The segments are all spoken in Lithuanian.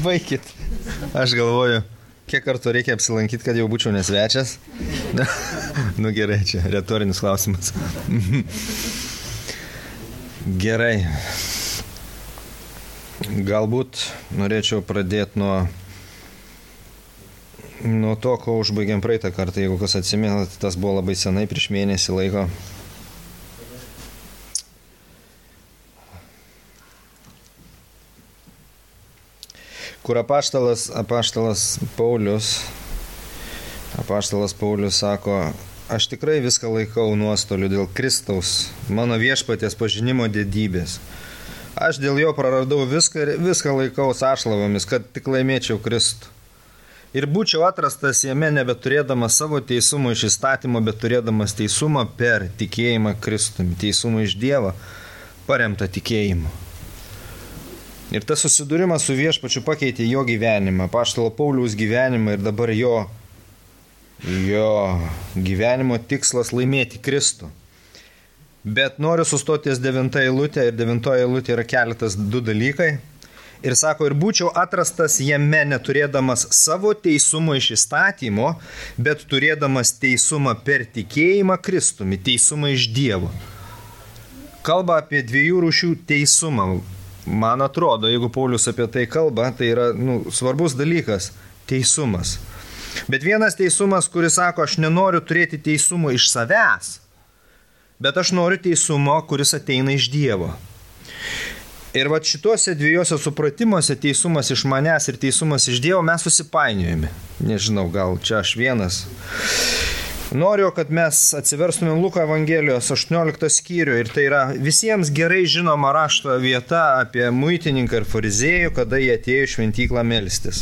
Baikit. Aš galvoju, kiek kartų reikia apsilankyti, kad jau būčiau nesvečias. Nu gerai, čia retorinis klausimas. Gerai. Galbūt norėčiau pradėti nuo to, ko užbaigėm praeitą kartą. Jeigu kas atsimenat, tas buvo labai senai, prieš mėnesį laiko. Kur apaštalas Paulius sako, aš tikrai viską laikau nuostoliu dėl Kristaus, mano viešpaties pažinimo didybės. Aš dėl jo praradau viską laikau ašlavomis, kad tik laimėčiau Kristų. Ir būčiau atrastas jame nebeturėdamas savo teisumo iš įstatymo, bet turėdamas teisumą per tikėjimą Kristumi, teisumą iš Dievo, paremtą tikėjimu. Ir tas susidūrimas su viešpačiu pakeitė jo gyvenimą, apaštalo Pauliaus gyvenimą ir dabar jo gyvenimo tikslas laimėti Kristų. Bet noriu sustoti ties 9 eilutė ir 9 eilutė yra keletas 2 dalykai. Ir sako, ir būčiau atrastas jame neturėdamas savo teisumo iš įstatymo, bet turėdamas teisumą per tikėjimą Kristumi, teisumą iš Dievo. Kalba apie 2 rūšių teisumą. Man atrodo, jeigu Paulius apie tai kalba, tai yra svarbus dalykas – teisumas. Bet vienas teisumas, kuris sako, aš nenoriu turėti teisumo iš savęs, bet aš noriu teisumo, kuris ateina iš Dievo. Ir vat šituose 2 supratimuose, teisumas iš manęs ir teisumas iš Dievo, mes susipainiojame. Nežinau, gal čia aš vienas. Noriu, kad mes atsiverstumėm Luko Evangelijos 18 skyrių ir tai yra visiems gerai žinoma rašto vieta apie muitininką ir fariziejų, kada jie atėjo į šventyklą melstis.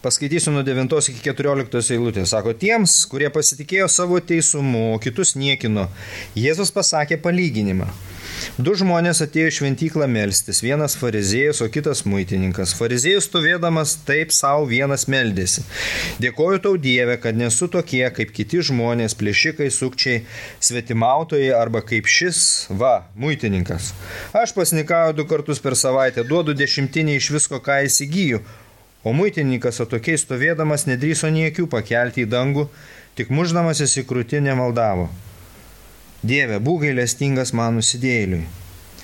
Paskaitysiu nuo 9 iki 14 eilutės. Sako, tiems, kurie pasitikėjo savo teisumu, o kitus niekino, Jėzus pasakė palyginimą. 2 žmonės atėjo į šventyklą melstis, vienas fariziejus, o kitas muitininkas. Fariziejus stovėdamas taip savo vienas meldėsi. Dėkoju tau Dieve, kad nesu tokie kaip kiti žmonės, plėšikai, sukčiai, svetimautojai arba kaip šis, muitininkas. Aš pasnikauju 2 kartus per savaitę, duodu 10 iš visko, ką įsigyju. O muitininkas atokiai stovėdamas nedrįso nė akių pakelti į dangų, tik muždamasis į krūtinę maldavo. Dieve, būk gailestingas man nusidėjėliui.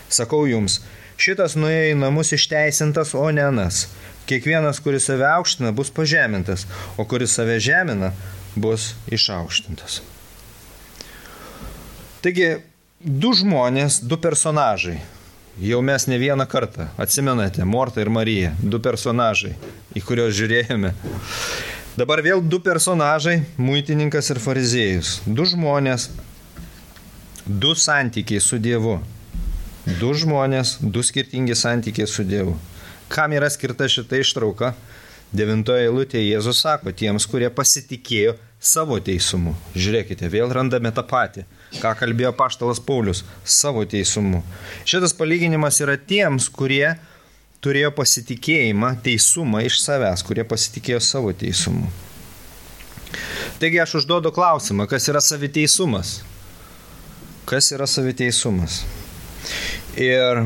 Sakau jums, šitas nuėjo į namus išteisintas, o ne anas. Kiekvienas, kuris save aukština, bus pažemintas, o kuris save žemina, bus išaukštintas. Taigi, 2 žmonės, 2 personažai. Jau mes ne vieną kartą, atsimenate, Morta ir Marija, 2 personažai, į kuriuos žiūrėjome. Dabar vėl 2 personažai, muitininkas ir fariziejus. 2 žmonės, 2 santykiai su Dievu. 2 žmonės, 2 skirtingi santykiai su Dievu. Kam yra skirta šita ištrauka? 9 eilutėje Jėzus sako, tiems, kurie pasitikėjo savo teisumu. Žiūrėkite, vėl randame tą patį, ką kalbėjo apaštalas Paulius, savo teisumu. Šitas palyginimas yra tiems, kurie turėjo pasitikėjimą, teisumą iš savęs, kurie pasitikėjo savo teisumu. Taigi aš užduodu klausimą, kas yra saviteisumas? Kas yra saviteisumas? Ir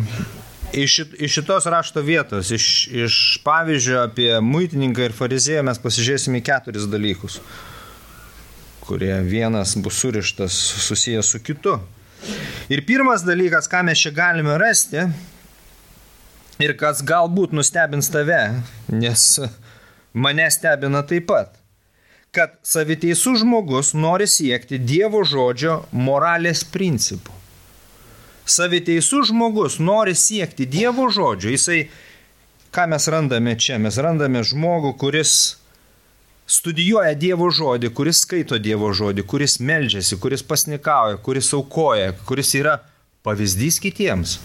iš šitos rašto vietos, iš pavyzdžio apie muitininką ir farizėją mes pasižiūrėsime 4 dalykus, kurie vienas bus surištas susijęs su kitu. Ir pirmas dalykas, ką mes čia galime rasti, ir kas galbūt nustebins tave, nes mane stebina taip pat, kad saviteisus žmogus nori siekti Dievo žodžio moralės principų. Saviteisus žmogus nori siekti Dievo žodžio. Jisai, ką mes randame čia? Mes randame žmogų, kuris studijuoja Dievo žodį, kuris skaito Dievo žodį, kuris meldžiasi, kuris pasnikauja, kuris aukoja, kuris yra pavyzdys kitiems.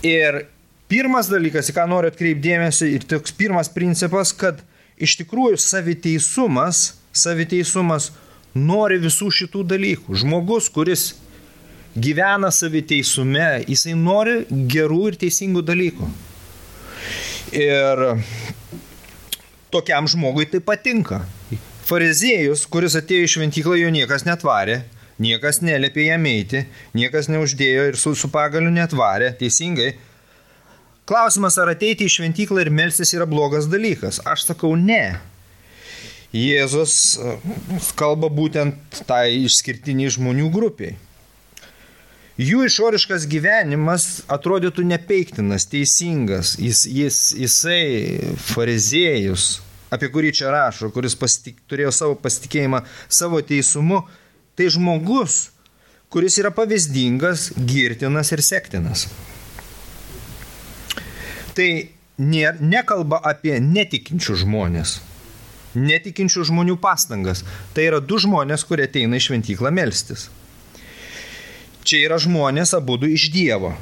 Ir pirmas dalykas, į ką noriu atkreipti dėmesį, ir toks pirmas principas, kad iš tikrųjų saviteisumas nori visų šitų dalykų. Žmogus, kuris gyvena saviteisume, jisai nori gerų ir teisingų dalykų. Ir tokiam žmogui tai patinka. Fariziejus, kuris atėjo į šventyklą, jo niekas netvarė, Niekas neliepė jam eiti, niekas neuždėjo ir su pagaliu netvarė, teisingai. Klausimas, ar ateiti į šventyklą ir melstis yra blogas dalykas? Aš sakau, ne. Jėzus kalba būtent tai išskirtiniai žmonių grupiai. Jų išoriškas gyvenimas atrodytų nepeiktinas, teisingas. Jisai fariziejus, apie kurį čia rašo, kuris turėjo savo pasitikėjimą savo teisumu, tai žmogus, kuris yra pavyzdingas, girtinas ir sektinas. Tai nekalba apie netikinčių žmonės, netikinčių žmonių pastangas. Tai yra du žmonės, kurie ateina į šventyklą melstis. Čia yra žmonės abudu iš Dievo.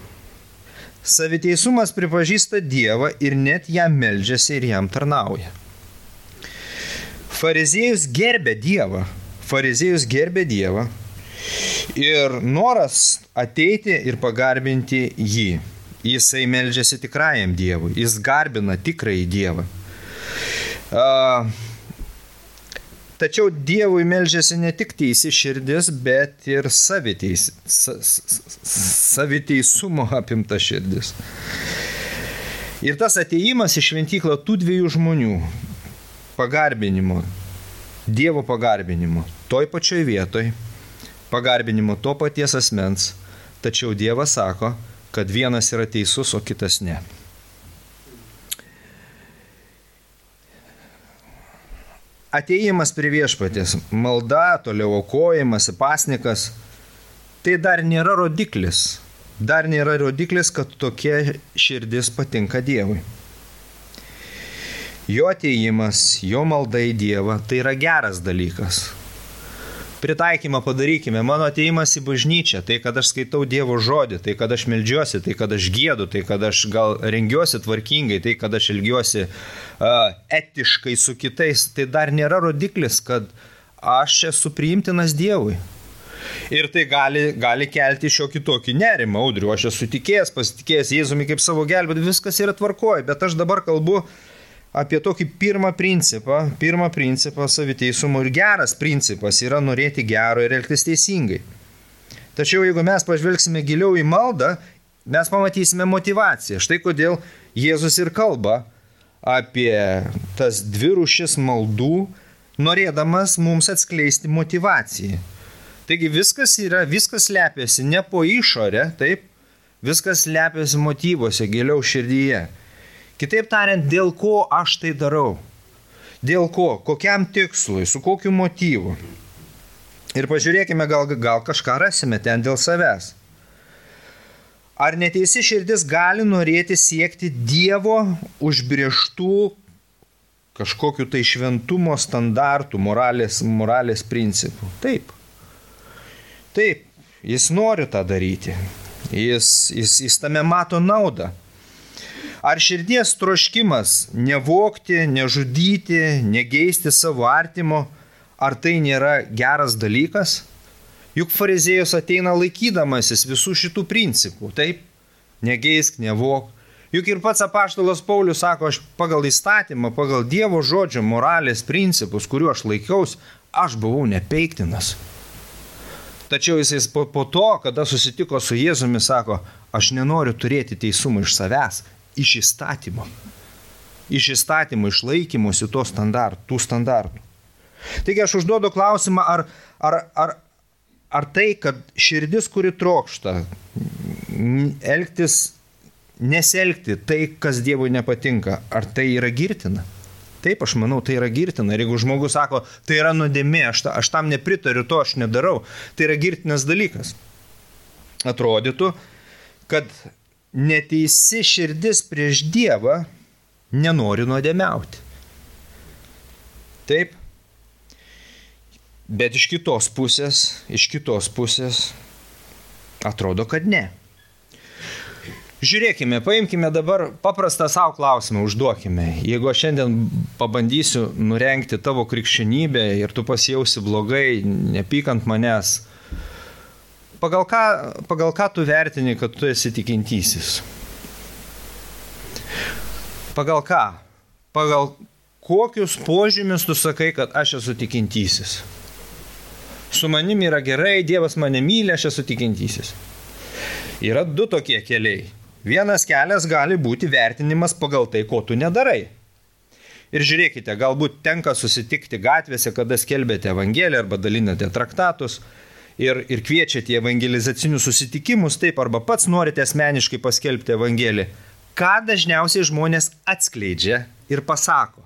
Saviteisumas pripažįsta Dievą ir net jam meldžiasi ir jam tarnauja. Fariziejus gerbė Dievą. Fariziejus gerbė Dievą ir noras ateiti ir pagarbinti jį. Jisai meldžiasi tikrajam Dievui. Jis garbina tikrąjį Dievą. Tačiau Dievui meldžiasi ne tik teisi širdis, bet ir saviteisumo apimta širdis. Ir tas atėjimas į šventyklą tų dviejų žmonių pagarbinimo, Dievo pagarbinimo, toj pačioj vietoj, pagarbinimo to paties asmens, tačiau Dievas sako, kad vienas yra teisus, o kitas ne. Atėjimas prie viešpaties, malda, toliau aukojimas, pasnikas, tai dar nėra rodiklis. Dar nėra rodiklis, kad tokia širdis patinka Dievui. Jo atėjimas, jo malda į Dievą, tai yra geras dalykas. Pritaikymą padarykime. Mano atėjimas į bažnyčią, tai kad aš skaitau Dievo žodį, tai kad aš meldžiuosi, tai kad aš giedu, tai kad aš gal rengiuosi tvarkingai, tai kad aš elgiuosi etiškai su kitais, tai dar nėra rodiklis, kad aš esu priimtinas Dievui. Ir tai gali kelti šiokį tokį nerimą, Audriu, aš esu tikėjęs, pasitikėjęs Jėzumi kaip savo gelbėtoju, viskas yra tvarkoj, bet aš dabar kalbu apie tokį pirmą principą saviteisumo, ir geras principas yra norėti gero ir elgtis teisingai. Tačiau jeigu mes pažvelgsime giliau į maldą, mes pamatysime motivaciją. Štai kodėl Jėzus ir kalba apie tas dvi rūšis maldų, norėdamas mums atskleisti motivaciją. Taigi viskas slepiasi ne po išorę, taip, viskas slepiasi motyvuose, giliau širdyje. Kitaip tariant, dėl ko aš tai darau? Dėl ko? Kokiam tikslui? Su kokiu motyvu? Ir pažiūrėkime, gal kažką rasime ten dėl savęs. Ar neteisi širdis gali norėti siekti Dievo užbrėžtų kažkokių tai šventumo standartų, moralės principų? Taip. Taip, jis nori tą daryti. Jis tame mato naudą. Ar širdies troškimas nevogti, nežudyti, negeisti savo artimo, ar tai nėra geras dalykas? Juk fariziejus ateina laikydamasis visų šitų principų, taip? Negeisk, nevok. Juk ir pats apaštalas Paulius sako, aš pagal įstatymą, pagal Dievo žodžio moralės principus, kuriuo aš laikiaus, aš buvau nepeiktinas. Tačiau jis po to, kada susitiko su Jėzumi, sako, aš nenoriu turėti teisumą iš savęs, iš įstatymo. Iš įstatymo, iš laikymosi tų standartų. Taigi aš užduodu klausimą, ar tai, kad širdis, kuri trokšta, nesielgti tai, kas Dievui nepatinka, ar tai yra girtina? Taip, aš manau, tai yra girtina. Ir jeigu žmogus sako, tai yra nuodėmė, aš tam nepritariu, to aš nedarau, tai yra girtinas dalykas. Atrodytų, kad neteisi širdis prieš Dievą nenori nuodėmiauti. Taip. Bet iš kitos pusės atrodo, kad ne. Žiūrėkime, paimkime dabar paprastą savo klausimą, užduokime. Jeigu aš šiandien pabandysiu nurengti tavo krikščionybę ir tu pasijausi blogai, nepykant manęs, pagal ką tu vertini, kad tu esi tikintysis? Pagal ką? Pagal kokius požymius tu sakai, kad aš esu tikintysis? Su manimi yra gerai, Dievas mane myli, aš esu tikintysis. Yra du tokie keliai. Vienas kelias gali būti vertinimas pagal tai, ko tu nedarai. Ir žiūrėkite, galbūt tenka susitikti gatvėse, kada skelbėte evangeliją arba dalinate traktatus ir kviečiate į evangelizacinius susitikimus, taip, arba pats norite asmeniškai paskelbti evangeliją. Ką dažniausiai žmonės atskleidžia ir pasako?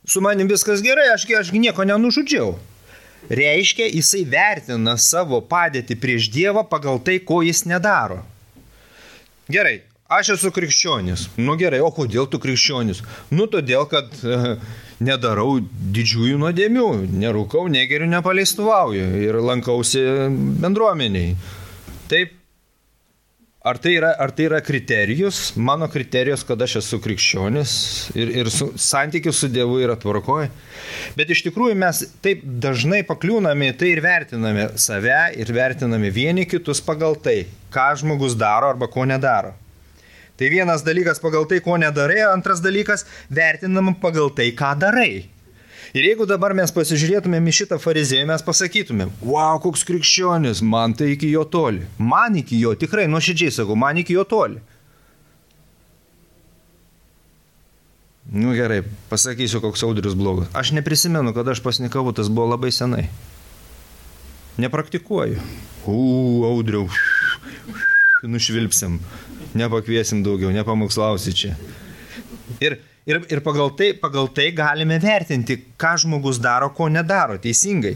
Su manim viskas gerai, aš nieko nenužudžiau. Reiškia, jisai vertina savo padėtį prieš Dievą pagal tai, ko jis nedaro. Gerai, aš esu krikščionis. Nu gerai, o kodėl tu krikščionis? Nu todėl, kad nedarau didžiųjų nuodėmių, nerūkau, negeriu, nepaleistuvauju ir lankausi bendruomeniai. Taip. Ar tai yra kriterijus? Mano kriterijus, kad aš esu krikščionis ir santykis su Dievu yra tvarkoje. Bet iš tikrųjų mes taip dažnai pakliūname tai ir vertiname save ir vertiname vieni kitus pagal tai, ką žmogus daro arba ko nedaro. Tai vienas dalykas pagal tai, ko nedarai, antras dalykas vertinam pagal tai, ką darai. Ir jeigu dabar mes pasižiūrėtumėm į šitą fariziejų, mes pasakytumėm, wow, koks krikščionis, man tai iki jo toli. Man iki jo, tikrai, nuoširdžiai sakau, man iki jo toli. Nu gerai, pasakysiu, koks Audrius blogas. Aš neprisimenu, kad aš pasnikavau, tas buvo labai senai. Nepraktikuoju. Audriau, nušvilpsim, nepakviesim daugiau, nepamokslausi čia. Ir pagal tai galime vertinti, ką žmogus daro, ko nedaro, teisingai.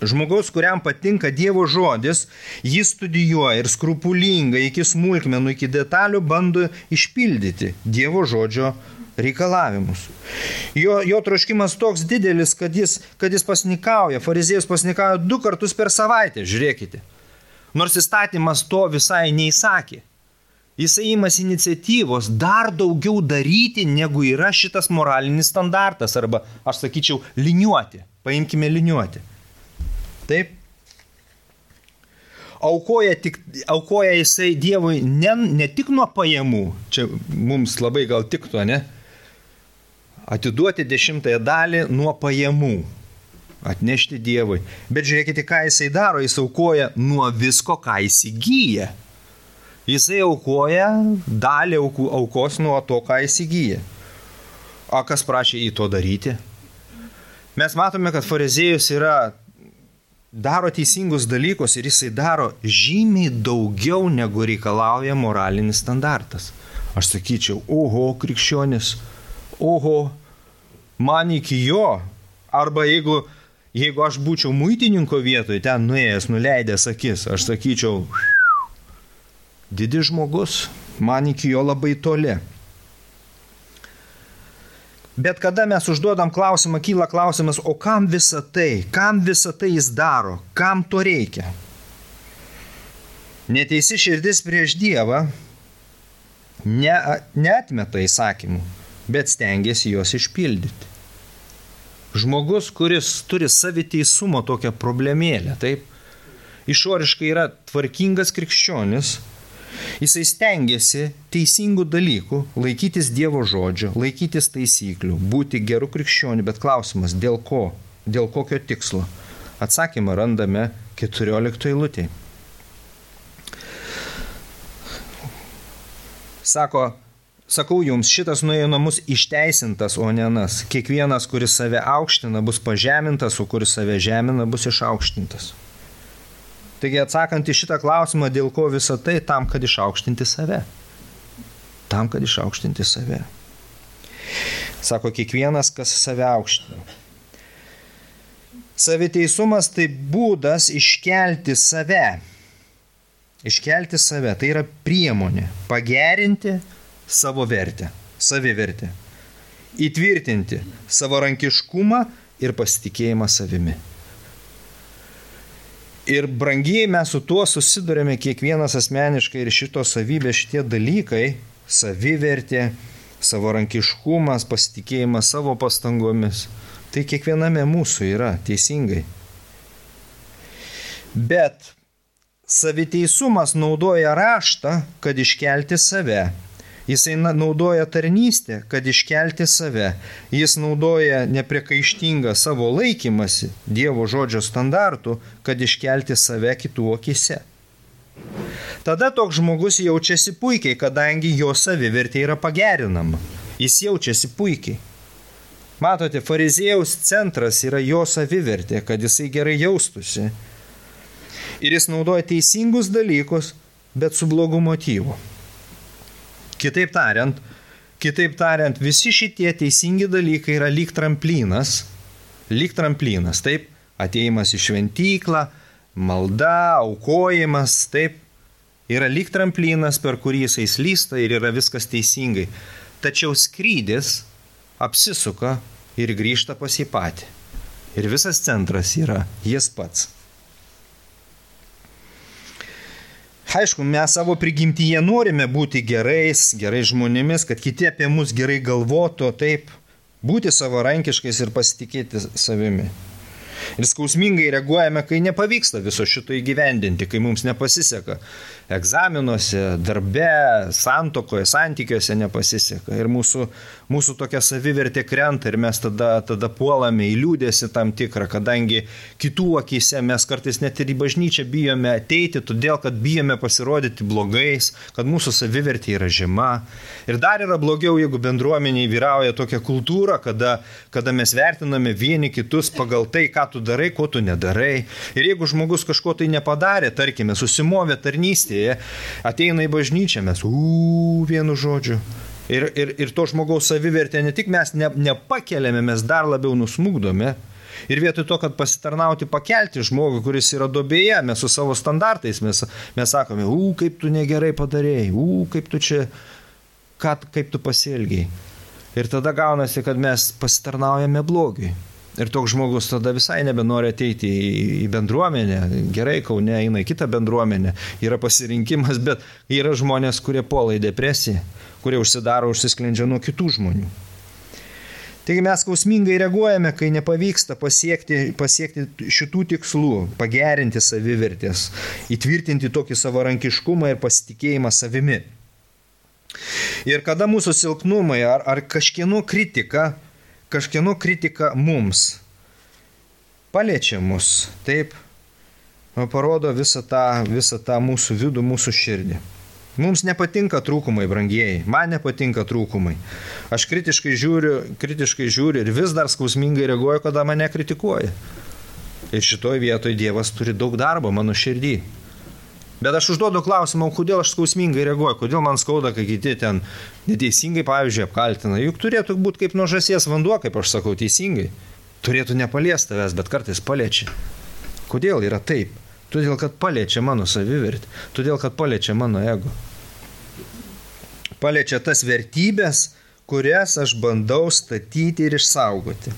Žmogaus, kuriam patinka Dievo žodis, jį studijuoja ir skrupulingai iki smulkmenų, iki detalių bando išpildyti Dievo žodžio reikalavimus. Jo troškimas toks didelis, kad jis pasnikauja, fariziejus pasnikauja 2 kartus per savaitę, žiūrėkite. Nors įstatymas to visai neįsakė. Jisai imasi iniciatyvos dar daugiau daryti, negu yra šitas moralinis standartas, arba, aš sakyčiau, liniuoti. Paimkime liniuoti. Taip. Aukoja jisai Dievui ne tik nuo pajamų, čia mums labai gal tiktų, ne? Atiduoti 10 dalį nuo pajamų, atnešti Dievui. Bet žiūrėkite, ką jisai daro, jis aukoja nuo visko, ką įsigyja. Jisai aukoja dalį aukos nuo to, ką įsigyja. O kas prašė į to daryti? Mes matome, kad fariziejus daro teisingus dalykus ir jisai daro žymiai daugiau, negu reikalauja moralinis standartas. Aš sakyčiau, oho, krikščionis, oho, man iki jo. Arba jeigu aš būčiau muitininko vietoje, ten nuėjęs, nuleidęs akis, aš sakyčiau, didis žmogus, man iki jo labai toli. Bet kada mes užduodam klausimą, kyla klausimas, o kam visa tai? Kam visa tai jis daro? Kam to reikia? Neteisi širdis prieš Dievą neatmeta įsakymų, bet stengiasi juos išpildyti. Žmogus, kuris turi saviteisumo tokią problemėlę, taip, išoriškai yra tvarkingas krikščionis, jisai stengiasi teisingų dalykų, laikytis Dievo žodžio, laikytis taisyklių, būti geru krikščioniu, bet klausimas, dėl ko? Dėl kokio tikslo? Atsakymą randame 14 eilutėje. Sakau jums, šitas nuėjo namus išteisintas, o ne anas. Kiekvienas, kuris save aukština, bus pažemintas, o kuris save žemina, bus išaukštintas. Taigi atsakant į šitą klausimą, dėl ko visą tai, tam, kad išaukštinti save. Tam, kad išaukštinti save. Sako, kiekvienas, kas save aukština. Saviteisumas tai būdas iškelti save. Iškelti save, tai yra priemonė. Pagerinti savo vertę, savivertę. Įtvirtinti savarankiškumą ir pasitikėjimą savimi. Ir brangiai mes su tuo susidurėme kiekvienas asmeniškai ir šitos savybės, šitie dalykai, savivertė, savarankiškumas, pasitikėjimas savo pastangomis, tai kiekviename mūsų yra teisingai. Bet saviteisumas naudoja raštą, kad iškelti save. Jisai naudoja tarnystę, kad iškelti save. Jis naudoja nepriekaištingą savo laikymasi Dievo žodžio standartų, kad iškelti save kitų akyse. Tada toks žmogus jaučiasi puikiai, kadangi jo savivertė yra pagerinama. Jis jaučiasi puikiai. Matote, fariziejaus centras yra jo savivertė, kad jisai gerai jaustųsi. Ir jis naudoja teisingus dalykus, bet su blogu motyvu. Kitaip tariant, visi šitie teisingi dalykai yra lyg tramplinas, taip, atėjimas į šventyklą, malda, aukojimas, taip, yra lyg tramplinas, per kurį jisai slysta ir yra viskas teisingai. Tačiau skrydis apsisuka ir grįžta pas jį patį. Ir visas centras yra jis pats. Aišku, mes savo prigimtyje norime būti gerais žmonėmis, kad kiti apie mus gerai galvotų, taip, būti savarankiškais ir pasitikėti savimi. Ir skausmingai reaguojame, kai nepavyksta viso šito įgyvendinti, kai mums nepasiseka. Egzaminuose, darbe, santuokoje, santykiuose nepasiseka. Ir mūsų tokia savivertė krenta ir mes tada puolame į liūdėsi tam tikrą, kadangi kitų akyse mes kartais net ir į bažnyčią bijome ateiti, todėl kad bijome pasirodyti blogais, kad mūsų savivertė yra žema. Ir dar yra blogiau, jeigu bendruomeniai vyrauja tokia kultūra, kada mes vertiname vieni kitus pagal tai, ką tu darai, ko tu nedarai. Ir jeigu žmogus kažko tai nepadarė, tarkime, susimovė tarnystėje, ateina į bažnyčią, mes vienu žodžiu. Ir to žmogaus savivertė ne tik mes nepakeliame, mes dar labiau nusmukdome. Ir vietoj to, kad pasitarnauti pakelti žmogų, kuris yra duobėje, mes su savo standartais, mes sakome, kaip tu negerai padarėjai, kaip tu čia, kaip tu pasielgiai. Ir tada gaunasi, kad mes pasitarnaujame blogiui. Ir toks žmogus tada visai nebenori ateiti į bendruomenę. Gerai, Kaune eina į kitą bendruomenę. Yra pasirinkimas, bet yra žmonės, kurie puola į depresiją, kurie užsisklendžia nuo kitų žmonių. Taigi mes skausmingai reaguojame, kai nepavyksta pasiekti šitų tikslų, pagerinti savivertės, įtvirtinti tokį savarankiškumą ir pasitikėjimą savimi. Ir kada mūsų silpnumai ar kažkieno kritika mums paliečia mus, taip, parodo visą tą mūsų vidų, mūsų širdį. Mums nepatinka trūkumai, brangieji, man nepatinka trūkumai. Aš kritiškai žiūriu ir vis dar skausmingai reaguoju, kada mane kritikuoja. Ir šitoj vietoj Dievas turi daug darbo mano širdį. Bet aš užduodu klausimą, kodėl aš skausmingai reaguoju, kodėl man skauda, kai kiti ten neteisingai, pavyzdžiui, apkaltina. Juk turėtų būti kaip nuo žąsies vanduo, kaip aš sakau, teisingai. Turėtų nepaliesti tavęs, bet kartais paliečia. Kodėl yra taip? Todėl, kad paliečia mano savivertį, todėl, kad paliečia mano ego. Paliečia tas vertybės, kurias aš bandau statyti ir išsaugoti.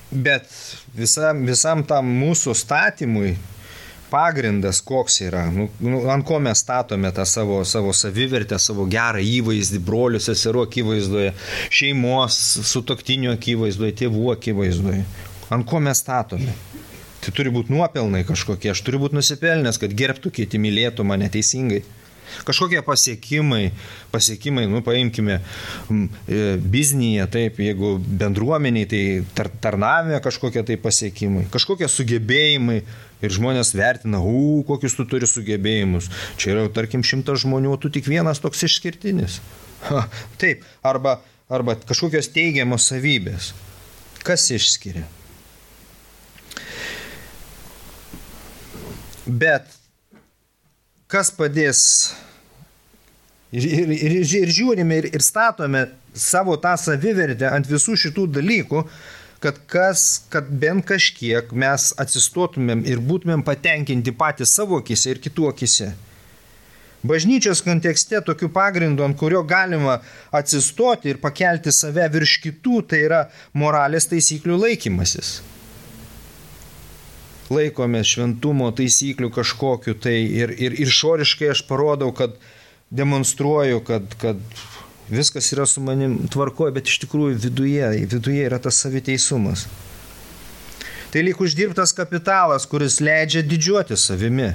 Bet visam tam mūsų statymui pagrindas koks yra, ant ko mes statome tą savo savivertę, savo gerą įvaizdį, brolių, seserų akivaizdoje, šeimos, sutuoktinių akivaizdoje, tėvų akivaizdoje. Ant ko mes statome? Tai turi būti nuopelnai kažkokie, aš turiu būti nusipelnęs, kad gerbtų kiti, mylėtų mane teisingai. Kažkokie pasiekimai, paimkime biznyje, taip, jeigu bendruomeniai, tai tarnavime kažkokie tai pasiekimai, kažkokie sugebėjimai ir žmonės vertina, kokius tu turi sugebėjimus. Čia yra, tarkim, 100 žmonių, tu tik vienas toks išskirtinis. Taip, arba kažkokios teigiamos savybės. Kas išskiria? Bet kas padės ir žiūrime ir statome savo tą savivertę ant visų šitų dalykų, kad bent kažkiek mes atsistotumėm ir būtumėm patenkinti patys savo akise ir kitų akise. Bažnyčios kontekste tokiu pagrindu, ant kurio galima atsistoti ir pakelti save virš kitų, tai yra moralės taisyklių laikymasis. Laikomės šventumo taisyklių kažkokiu tai ir išoriškai aš parodau, kad demonstruoju, kad viskas yra su manim tvarkoje, bet iš tikrųjų viduje yra tas saviteisumas. Tai lyg uždirbtas kapitalas, kuris leidžia didžiuoti savimi.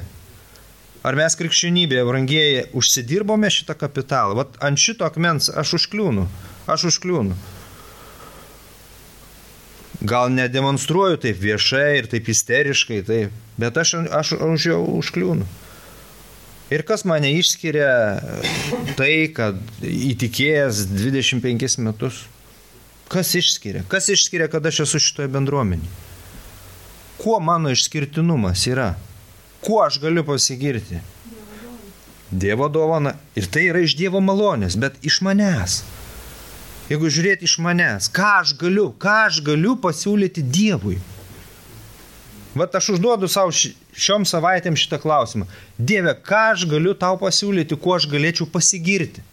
Ar mes krikščionybėje, brangieji, užsidirbome šitą kapitalą? Vat ant šito akmens aš užkliūnu. Gal nedemonstruoju taip viešai ir taip isteriškai, taip, bet aš už jo užkliūnu. Ir kas mane išskiria tai, kad įtikėjęs 25 metus? Kas išskiria? Kas išskiria, kad aš esu šitoje bendruomenėje? Kuo mano išskirtinumas yra? Kuo aš galiu pasigirti? Dievo dovana. Ir tai yra iš Dievo malonės, bet iš manęs. Jeigu žiūrėti iš manęs, ką aš galiu pasiūlyti Dievui? Vat aš užduodu savo šiom savaitėm šitą klausimą. Dieve, ką aš galiu tau pasiūlyti, kuo aš galėčiau pasigirti?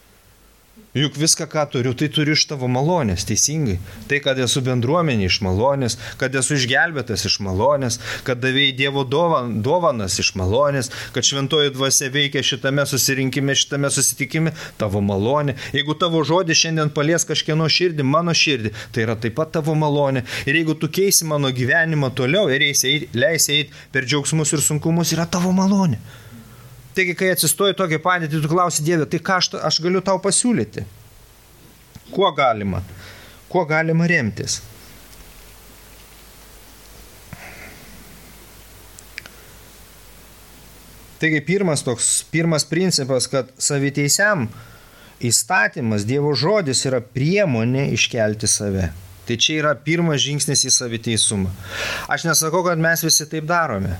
Juk viską, ką turiu, tai turiu iš tavo malonės, teisingai. Tai, kad esu bendruomenė iš malonės, kad esu išgelbėtas iš malonės, kad davėjai Dievo dovanas iš malonės, kad šventoji dvasia veikia šitame susirinkime, šitame susitikime, tavo malonė. Jeigu tavo žodis šiandien palies kažkieno širdį, mano širdį, tai yra taip pat tavo malonė. Ir jeigu tu keisi mano gyvenimą toliau ir leisi eiti per džiaugsmus ir sunkumus, yra tavo malonė. Taigi, kai atsistoji tokią padėtį, tu klausi Dieve, tai ką aš galiu tau pasiūlyti? Kuo galima remtis? Taigi, pirmas principas, kad saviteisiam įstatymas, Dievo žodis yra priemonė iškelti save. Tai čia yra pirmas žingsnis į saviteisumą. Aš nesakau, kad mes visi taip darome.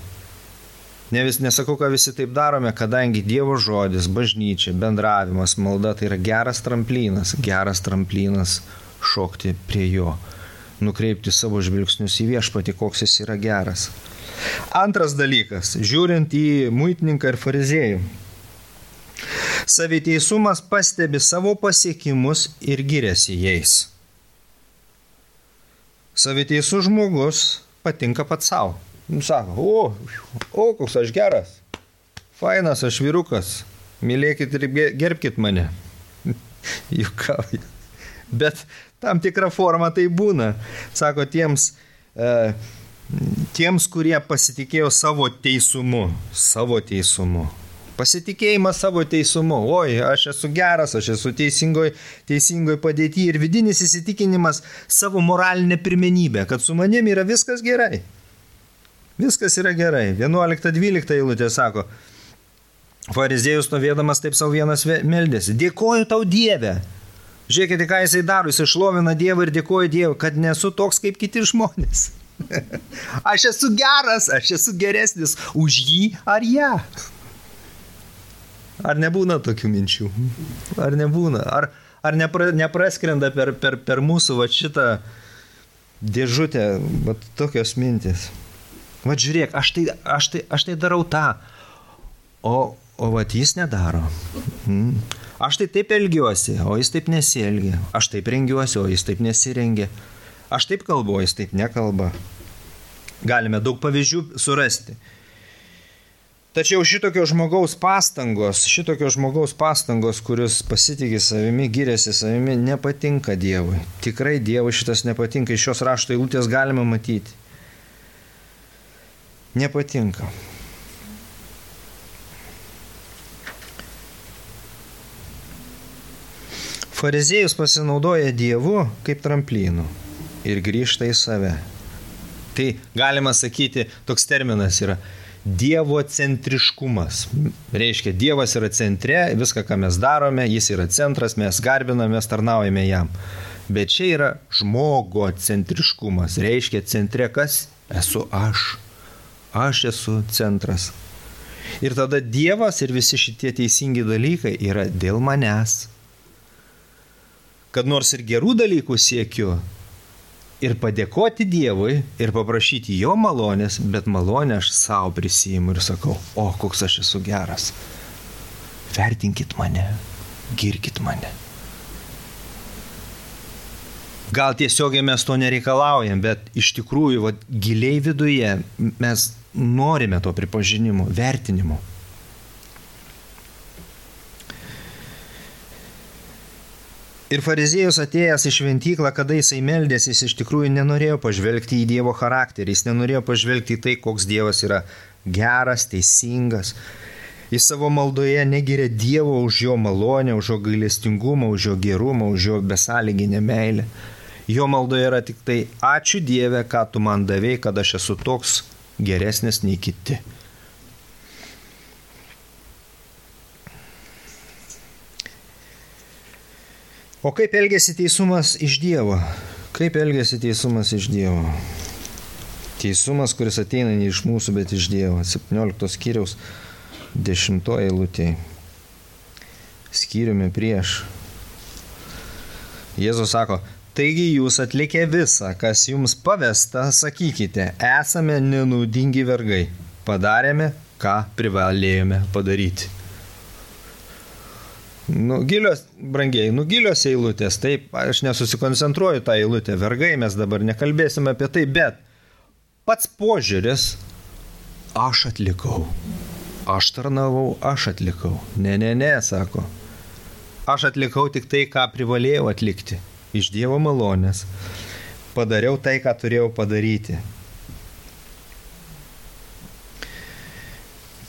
Nesakau, kad visi taip darome, kadangi Dievo žodis, bažnyčia, bendravimas, malda tai yra geras tramplinas šokti prie jo, nukreipti savo žvilgsnius į viešpatį, koks jis yra geras. Antras dalykas, žiūrint į muitininką ir fariziejų. Saviteisumas pastebi savo pasiekimus ir giriasi jais. Saviteisus žmogus patinka pats savo. Sako, koks aš geras, fainas aš vyrukas, mylėkit ir gerbkit mane. Jukauja. Bet tam tikrą formą tai būna. Sako, tiems, kurie pasitikėjo savo teisumu. Pasitikėjimas savo teisumu. Oi, aš esu geras, aš esu teisingoj padėty ir vidinis įsitikinimas savo moralinę pirmenybę, kad su manim yra viskas gerai. Viskas yra gerai. 11-12 eilutė sako, fariziejus stovėdamas taip savo vienas meldėsi. Dėkoju tau Dieve. Žiūrėkite, ką jisai daro. Jisai šlovina Dievą ir dėkoju Dievui, kad nesu toks kaip kiti žmonės. Aš esu geras, aš esu geresnis už jį ar ją. Ar nebūna tokių minčių? Ar nebūna? Ar nepraskrenda per mūsų va šitą dėžutę va tokios mintis? Va žiūrėk, aš tai darau tą, o va jis nedaro. Aš tai taip elgiuosi, o jis taip nesielgia. Aš taip rengiuosi, o jis taip nesirengia. Aš taip kalbu, o jis taip nekalba. Galime daug pavyzdžių surasti. Tačiau šitokio žmogaus pastangos, kuris pasitikė savimi, giriasi savimi, nepatinka Dievui. Tikrai Dievui šitas nepatinka. Iš šios rašto eilutės galima matyti. Nepatinka. Fariziejus pasinaudoja Dievu kaip tramplynu ir grįžta į save. Tai galima sakyti, toks terminas yra Dievo centriškumas. Reiškia, Dievas yra centre, viską, ką mes darome, jis yra centras, mes garbiname, mes tarnaujame jam. Bet čia yra žmogo centriškumas. Reiškia, centre kas? Esu aš. Aš esu centras. Ir tada Dievas ir visi šitie teisingi dalykai yra dėl manęs. Kad nors ir gerų dalykų siekiu ir padėkoti Dievui ir paprašyti jo malonės, bet malonę aš savo prisiimu ir sakau, koks aš esu geras. Vertinkit mane, girkit mane. Gal tiesiogiai mes to nereikalaujam, bet iš tikrųjų giliai viduje mes norime to pripažinimo, vertinimo. Ir fariziejus atėjęs į šventyklą, kada jisai meldėsi, jis iš tikrųjų nenorėjo pažvelgti į Dievo charakterį, jis nenorėjo pažvelgti į tai, koks Dievas yra geras, teisingas. Jis savo maldoje negiria Dievo už jo malonę, už jo gailestingumą, už jo gerumą, už jo besąlyginę meilę. Jo maldoje yra tik tai ačiū Dieve, ką tu man davei, kad aš esu toks geresnis nei kiti. O kaip elgiasi teisumas iš Dievo? Kaip elgiasi teisumas iš Dievo? Teisumas, kuris ateina ne iš mūsų, bet iš Dievo. 17 skyriaus 10 eilutė. Skyriumi prieš. Jėzus sako, taigi jūs atlikę visą, kas jums pavesta, sakykite, esame nenaudingi vergai. Padarėme, ką privalėjome padaryti. Gilios, brangiai, gilios eilutės, taip, aš nesusikoncentruoju tą eilutę, vergai, mes dabar nekalbėsime apie tai, bet pats požiūris, aš atlikau, aš tarnavau, aš atlikau. Ne, sako, aš atlikau tik tai, ką privalėjau atlikti, iš Dievo malonės, padariau tai, ką turėjau padaryti.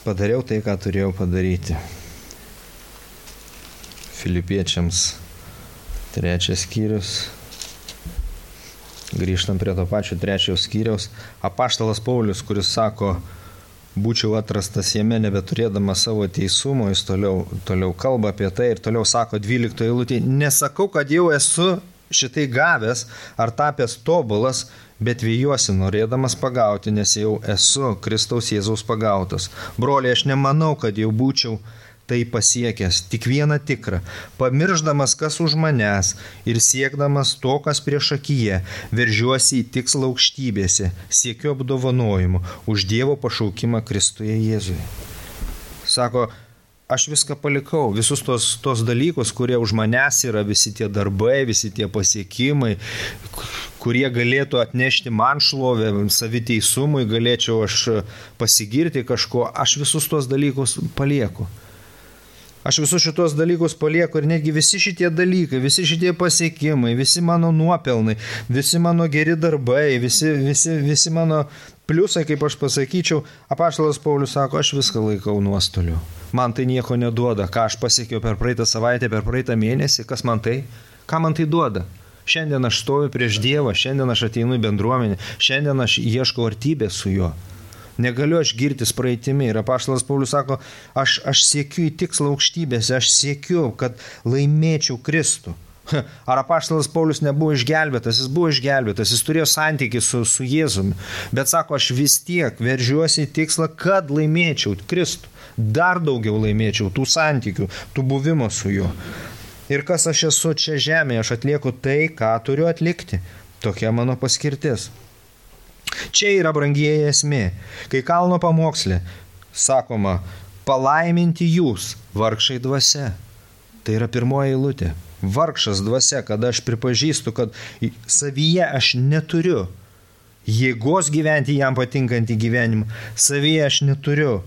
Padariau tai, ką turėjau padaryti. Filipiečiams 3 skyrius. Grįžtam prie to pačio 3 skyriaus. Apaštalas Paulius, kuris sako, būčiau atrastas jame nebeturėdamas savo teisumo, jis toliau kalba apie tai ir toliau sako 12 eilutėje, nesakau, kad jau esu šitai gavęs ar tapęs tobulas, bet vėjuosi norėdamas pagauti, nes jau esu Kristaus Jėzaus pagautas. Broliai, aš nemanau, kad jau būčiau tai pasiekęs, tik vieną tikrą, pamirždamas kas už manęs ir siekdamas to, kas prieš akiją, veržiuosi į tikslą aukštybėse, siekiu apdovanojimų už Dievo pašaukimą Kristuje Jėzuje. Sako, aš viską palikau, visus tos dalykus, kurie už manęs yra, visi tie darbai, visi tie pasiekimai, kurie galėtų atnešti man šlovę, saviteisumui, galėčiau aš pasigirti kažko, aš visus tos dalykus palieku. Aš visus šitos dalykus palieku ir netgi visi šitie dalykai, visi šitie pasiekimai, visi mano nuopelnai, visi mano geri darbai, visi mano pliusai, kaip aš pasakyčiau, apaštalas Paulius sako, aš viską laikau nuostoliu. Man tai nieko neduoda, ką aš pasiekiau per praeitą savaitę, per praeitą mėnesį, kas man tai, ką man tai duoda. Šiandien aš stoviu prieš Dievą, šiandien aš ateinu į bendruomenę, šiandien aš ieškau artybės su juo. Negaliu aš girtis praeitimi. Ir apaštalas Paulius sako, aš siekiu į tikslą aukštybėse, aš siekiu, kad laimėčiau Kristų. Ar apaštalas Paulius nebuvo išgelbėtas? Jis buvo išgelbėtas, jis turėjo santykį su Jėzumi. Bet sako, aš vis tiek veržiuosi į tikslą, kad laimėčiau Kristų. Dar daugiau laimėčiau tų santykių, tų buvimo su juo. Ir kas aš esu čia žemėje, aš atlieku tai, ką turiu atlikti. Tokia mano paskirtis. Čia yra brangieji esmė, kai kalno pamoksle sakoma, palaiminti jūs, vargšai dvasia. Tai yra pirmoji eilutė. Vargšas dvasia, kada aš pripažįstu, kad savyje aš neturiu jėgos gyventi jam patinkantį gyvenimą. Savyje aš neturiu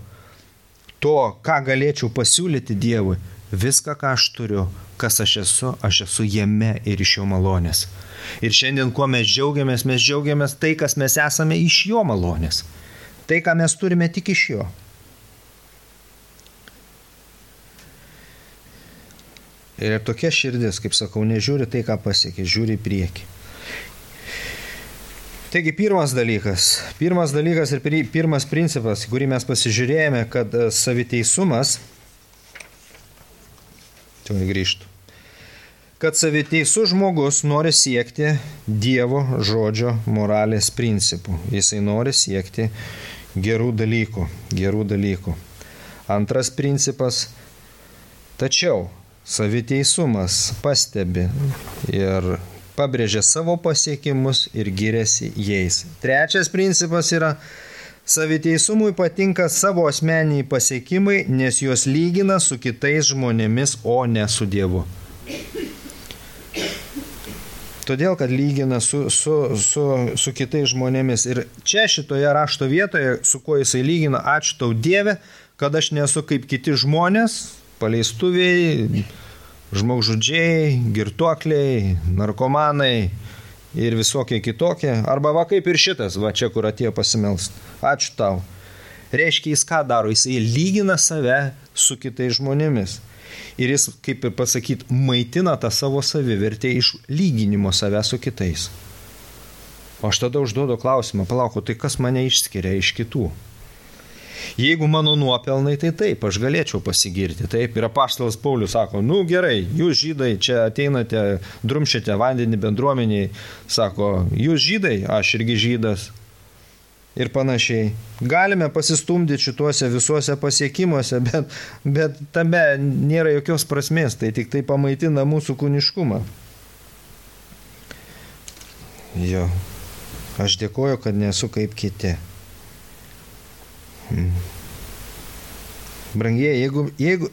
to, ką galėčiau pasiūlyti Dievui. Viską, ką aš turiu, kas aš esu jame ir iš jo malonės. Ir šiandien, kuo mes džiaugiamės tai, kas mes esame iš jo malonės. Tai, ką mes turime tik iš jo. Ir tokia širdis, kaip sakau, nežiūri tai, ką pasiekė, žiūri į priekį. Taigi pirmas dalykas ir pirmas principas, kurį mes pasižiūrėjome, kad saviteisumas, kad saviteisus žmogus nori siekti Dievo žodžio moralės principų. Jisai nori siekti gerų dalykų. Antras principas, tačiau saviteisumas pastebi ir pabrėžia savo pasiekimus ir giriasi jais. Trečias principas yra, saviteisumui patinka savo asmeniniai pasiekimai, nes juos lygina su kitais žmonėmis, o ne su Dievu. Todėl, kad lygina su kitais žmonėmis. Ir čia šitoje rašto vietoje, su kuo jisai lygina, ačiū tau Dieve, kad aš nesu kaip kiti žmonės, paleistuviai, žmogžudžiai, girtuokliai, narkomanai ir visokie kitokie. Arba va kaip ir šitas, va čia, kur atėjo pasimelst. Ačiū tau. Reiškia, jis ką daro? Jisai lygina save su kitais žmonėmis. Ir jis, kaip ir pasakyti, maitina tą savo savivertę iš lyginimo save su kitais. O aš tada užduodu klausimą, palauk, tai kas mane išskiria iš kitų? Jeigu mano nuopelnai, tai taip, aš galėčiau pasigirti. Taip, ir apaštalas Paulius sako, gerai, jūs žydai čia ateinate, drumšite vandenį bendruomeniai, sako, jūs žydai, aš irgi žydas. Ir panašiai. Galime pasistumdyti šituose visuose pasiekimuose, bet tame nėra jokios prasmės, tai tik tai pamaitina mūsų kūniškumą. Jo, aš dėkoju, kad nesu kaip kiti. Brangieji,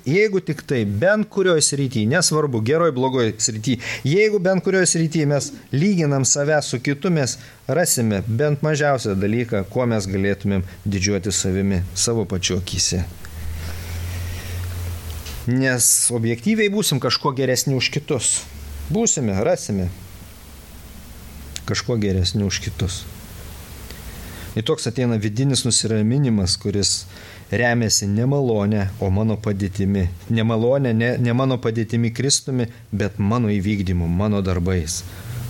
jeigu tik tai bent kurioje srityje, nesvarbu, geroj, blogoj srityje, jeigu bent kurioje srityje mes lyginam save su kitu, mes rasime bent mažiausią dalyką, kuo mes galėtumėm didžiuoti savimi, savo pačiu akyse. Nes objektyviai būsim kažko geresni už kitus. Būsime, rasime kažko geresni už kitus. Ir toks ateina vidinis nusiraminimas, kuris remiasi ne malonė, o mano padėtimi. Ne malonė, ne mano padėtimi Kristumi, bet mano įvykdymu, mano darbais.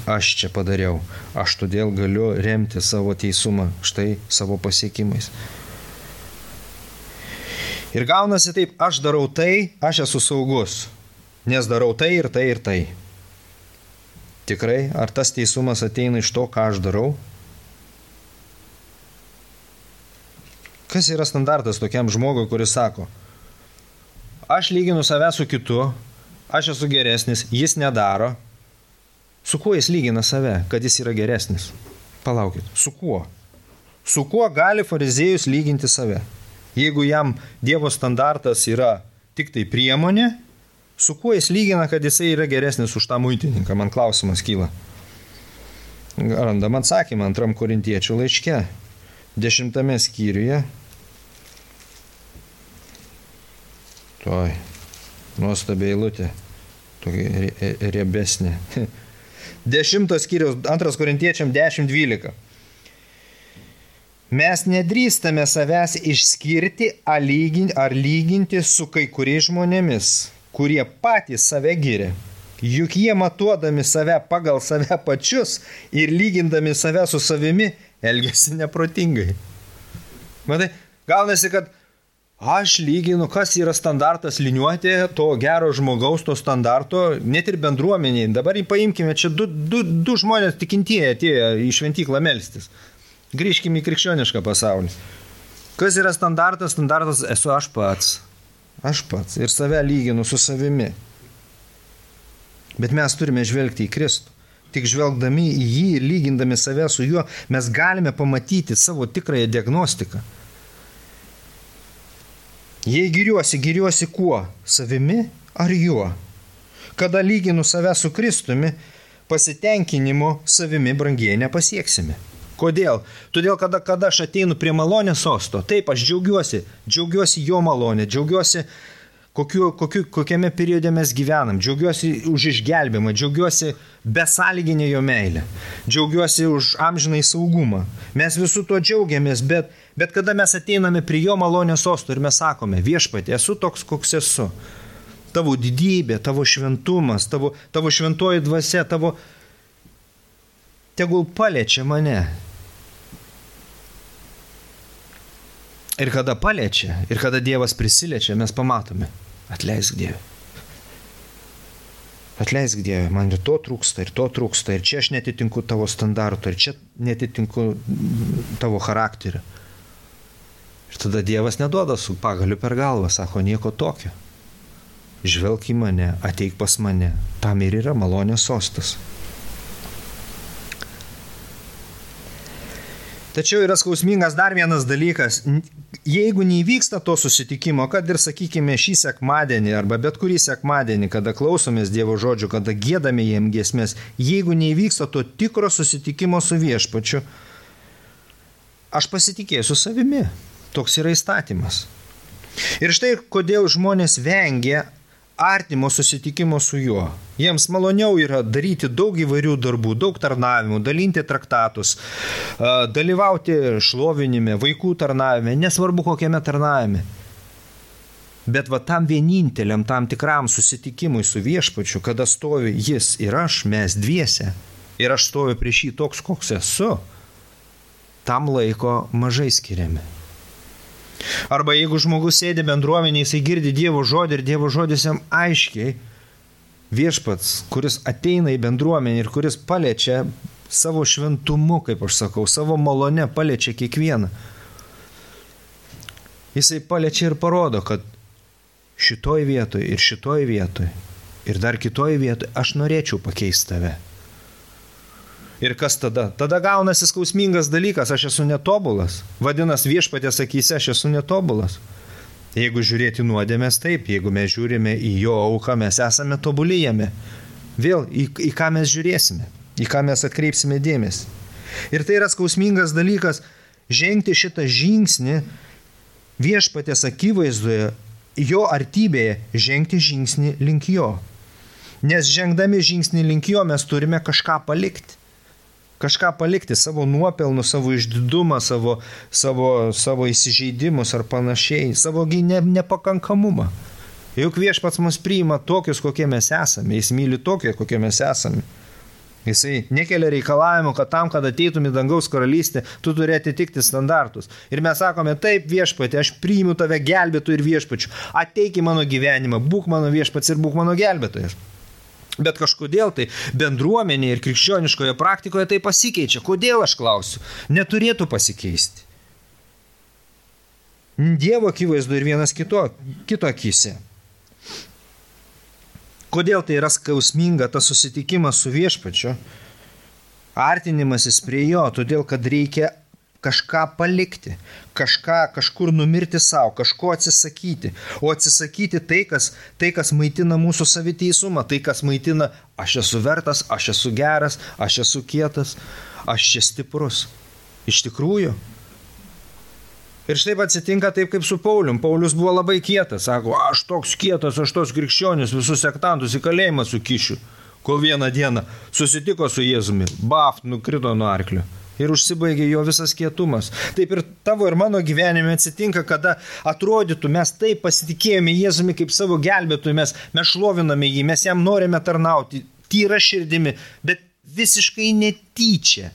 Aš čia padariau, aš todėl galiu remti savo teisumą, štai savo pasiekimais. Ir gaunasi taip, aš darau tai, aš esu saugus, nes darau tai ir tai ir tai. Tikrai, ar tas teisumas ateina iš to, ką aš darau? Kas yra standartas tokiam žmogui, kuris sako, aš lyginu save su kitu, aš esu geresnis, jis nedaro. Su kuo jis lygina save, kad jis yra geresnis? Palaukit, su kuo? Su kuo gali fariziejus lyginti save? Jeigu jam Dievo standartas yra tik tai priemonė, su kuo jis lygina, kad jisai yra geresnis už tą muitininką? Man klausimas kyla. Randam atsakymą 2 Korintiečių laiške, 10 skyriuje. Toj, nuostabi eilutė, tokia riebesnė. 10 skyriaus, 2 Korintiečiam 10:12. Mes nedrįstame savęs išskirti ar lyginti su kai kuriais žmonėmis, kurie patys save giria. Juk jie matuodami save pagal save pačius ir lygindami save su savimi elgiasi neprotingai. Matai, gaunasi, kad aš lyginu, kas yra standartas liniuoti to gero žmogaus, to standarto, net ir bendruomeniai. Dabar paimkime, čia du žmonės tikintieji atėjo į šventyklą melstis. Grįžkime į krikščionišką pasaulį. Kas yra standartas? Standartas esu aš pats. Aš pats. Ir save lyginu su savimi. Bet mes turime žvelgti į Kristų. Tik žvelgdami į jį ir lygindami save su juo, mes galime pamatyti savo tikrąją diagnostiką. Jei giriuosi kuo? Savimi ar juo? Kada lyginu save su Kristumi, pasitenkinimo savimi brangiai nepasieksime. Kodėl? Todėl, kada aš ateinu prie malonės sosto, taip, aš džiaugiuosi jo malonė, džiaugiuosi kokiame periode mes gyvenam, džiaugiuosi už išgelbėjimą, džiaugiuosi besąlyginę jo meilę, džiaugiuosi už amžinai saugumą. Mes visų to džiaugiamės, bet kada mes ateiname prie jo malonės sosto ir mes sakome, viešpatie, esu toks, koks esu. Tavo didybė, tavo šventumas, tavo šventoji dvasia, tegul paliečia mane. Ir kada paliečia, ir kada Dievas prisiliečia, mes pamatome. Atleisk Dieve. Atleisk Dieve, man ir to trūksta, ir čia aš netitinku tavo standarto, ir čia netitinku tavo charakterio. Ir tada Dievas neduoda su pagaliu per galvą, sako, nieko tokio. Žvelk į mane, ateik pas mane, tam ir yra malonės sostas. Tačiau yra skausmingas dar vienas dalykas. Jeigu neįvyksta to susitikimo, kad ir, sakykime, šį sekmadienį arba bet kurį sekmadienį, kada klausomės Dievo žodžių, kada giedame jiem giesmės, jeigu neįvyksta to tikro susitikimo su viešpačiu, aš pasitikėsiu savimi. Toks yra įstatymas. Ir štai kodėl žmonės vengia artimo susitikimo su juo. Jiems maloniau yra daryti daug įvairių darbų, daug tarnavimų, dalinti traktatus, dalyvauti šlovinime, vaikų tarnavime, nesvarbu kokiame tarnavime. Bet va tam vieninteliam, tam tikram susitikimui su viešpačiu, kada stovi jis ir aš, mes dviese, ir aš stoviu prieš jį toks, koks esu, tam laiko mažai skiriame. Arba jeigu žmogus sėdi bendruomenėje, jisai girdi Dievo žodį ir Dievo žodis jam aiškiai, viešpats, kuris ateina į bendruomenę ir kuris paliečia savo šventumu, kaip aš sakau, savo malone paliečia kiekvieną. Jisai paliečia ir parodo, kad šitoj vietoj ir dar kitoj vietoj aš norėčiau pakeisti tave. Ir kas tada? Tada gaunasi skausmingas dalykas, aš esu netobulas. Vadinasi, viešpaties akyse aš esu netobulas. Jeigu žiūrėti nuodėmės, taip, jeigu mes žiūrime į jo auką, mes esame tobuli jame. Vėl, į ką mes žiūrėsime, į ką mes atkreipsime dėmesį. Ir tai yra skausmingas dalykas, žengti šitą žingsnį viešpaties akivaizdoje, jo artybėje, žengti žingsnį link jo. Nes žengdami žingsnį link jo mes turime kažką palikti. Kažką palikti, savo nuopelnus, savo išdidumą, savo įsižeidimus ar panašiai, savo nepakankamumą. Juk viešpats mus priima tokius, kokie mes esame, jis myli tokie, kokie mes esame. Jisai nekelia reikalavimų, kad tam, kad ateitum į dangaus karalystę, tu turi atitikti standartus. Ir mes sakome, taip viešpatė, aš priimu tave gelbėtų ir viešpačių, ateik į mano gyvenimą, būk mano viešpats ir būk mano gelbėtojas. Bet kažkodėl tai bendruomenėje ir krikščioniškoje praktikoje tai pasikeičia. Kodėl, aš klausiu? Neturėtų pasikeisti. Dievo akivaizdu ir vienas kito akyse. Kodėl tai yra skausminga tas susitikimas su viešpačiu? Artinimasis prie jo, todėl kad reikia kažką palikti, kažkur numirti savo, kažko atsisakyti. O atsisakyti tai, kas maitina mūsų saviteisumą, tai, kas maitina aš esu vertas, aš esu geras, aš esu kietas, aš čia stiprus. Iš tikrųjų. Ir štai atsitinka taip kaip su Paulium. Paulius buvo labai kietas, sako, aš toks kietas, aš tos krikščionis, visus sektantus į kalėjimą sukišiu. Kol vieną dieną susitiko su Jėzumi, nukrito nuo arklio. Ir užsibaigė jo visas kietumas. Taip ir tavo ir mano gyvenime atsitinka, kada atrodytų, mes taip pasitikėjome Jėzumi kaip savo gelbėtojų, mes šloviname jį, mes jam norime tarnauti, tyra širdimi, bet visiškai netyčia.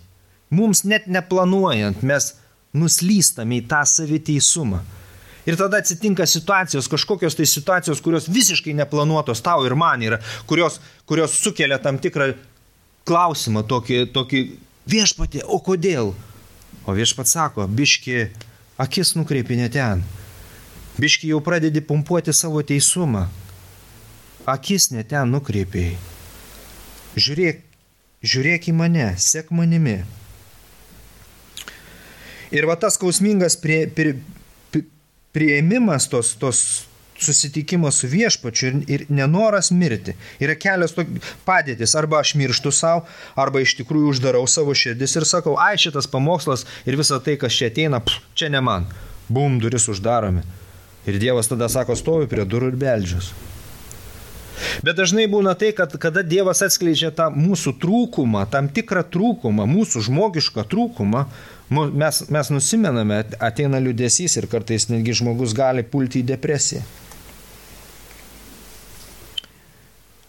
Mums net neplanuojant, mes nuslystame į tą saviteisumą. Ir tada atsitinka situacijos, kažkokios tai situacijos, kurios visiškai neplanuotos tau ir man yra, kurios sukelia tam tikrą klausimą, tokį viešpatie, o kodėl? O viešpats sako, biški akis nukreipi ne ten. Biški jau pradedi pumpuoti savo teisumą. Akis ne ten nukreipiai. Žiūrėk į mane, sek manimi. Ir va tas skausmingas priėmimas tos susitikimo su viešpačiu ir nenoras mirti. Yra kelios padėtis, arba aš mirštu savo, arba iš tikrųjų uždarau savo širdis ir sakau, ai šitas pamokslas ir visa tai, kas čia ateina, čia ne man. Bum, duris uždaromi. Ir Dievas tada sako, stovi prie durų ir beldžius. Bet dažnai būna tai, kad kada Dievas atskleidžia tą mūsų trūkumą, tam tikrą trūkumą, mūsų žmogišką trūkumą, mes nusimename, ateina liūdesys ir kartais netgi žmogus gali pulti į depresiją.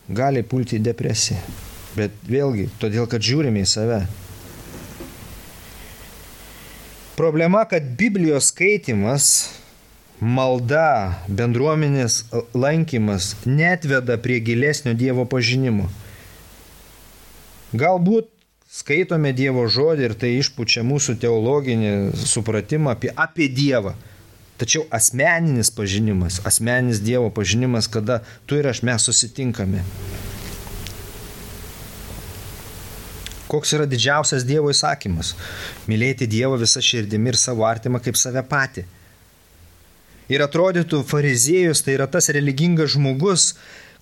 Gali pulti į depresiją. Bet vėlgi, todėl, kad žiūrime į save. Problema, kad Biblijos skaitimas, malda, bendruomenės lankymas neatveda prie gilesnio Dievo pažinimo. Galbūt skaitome Dievo žodį ir tai išpučia mūsų teologinį supratimą apie Dievą. Tačiau asmeninis pažinimas, asmeninis Dievo pažinimas, kada tu ir aš mes susitinkame. Koks yra didžiausias Dievo įsakymas? Mylėti Dievą visą širdimi ir savo artimą kaip save patį. Ir atrodytų, fariziejus tai yra tas religingas žmogus,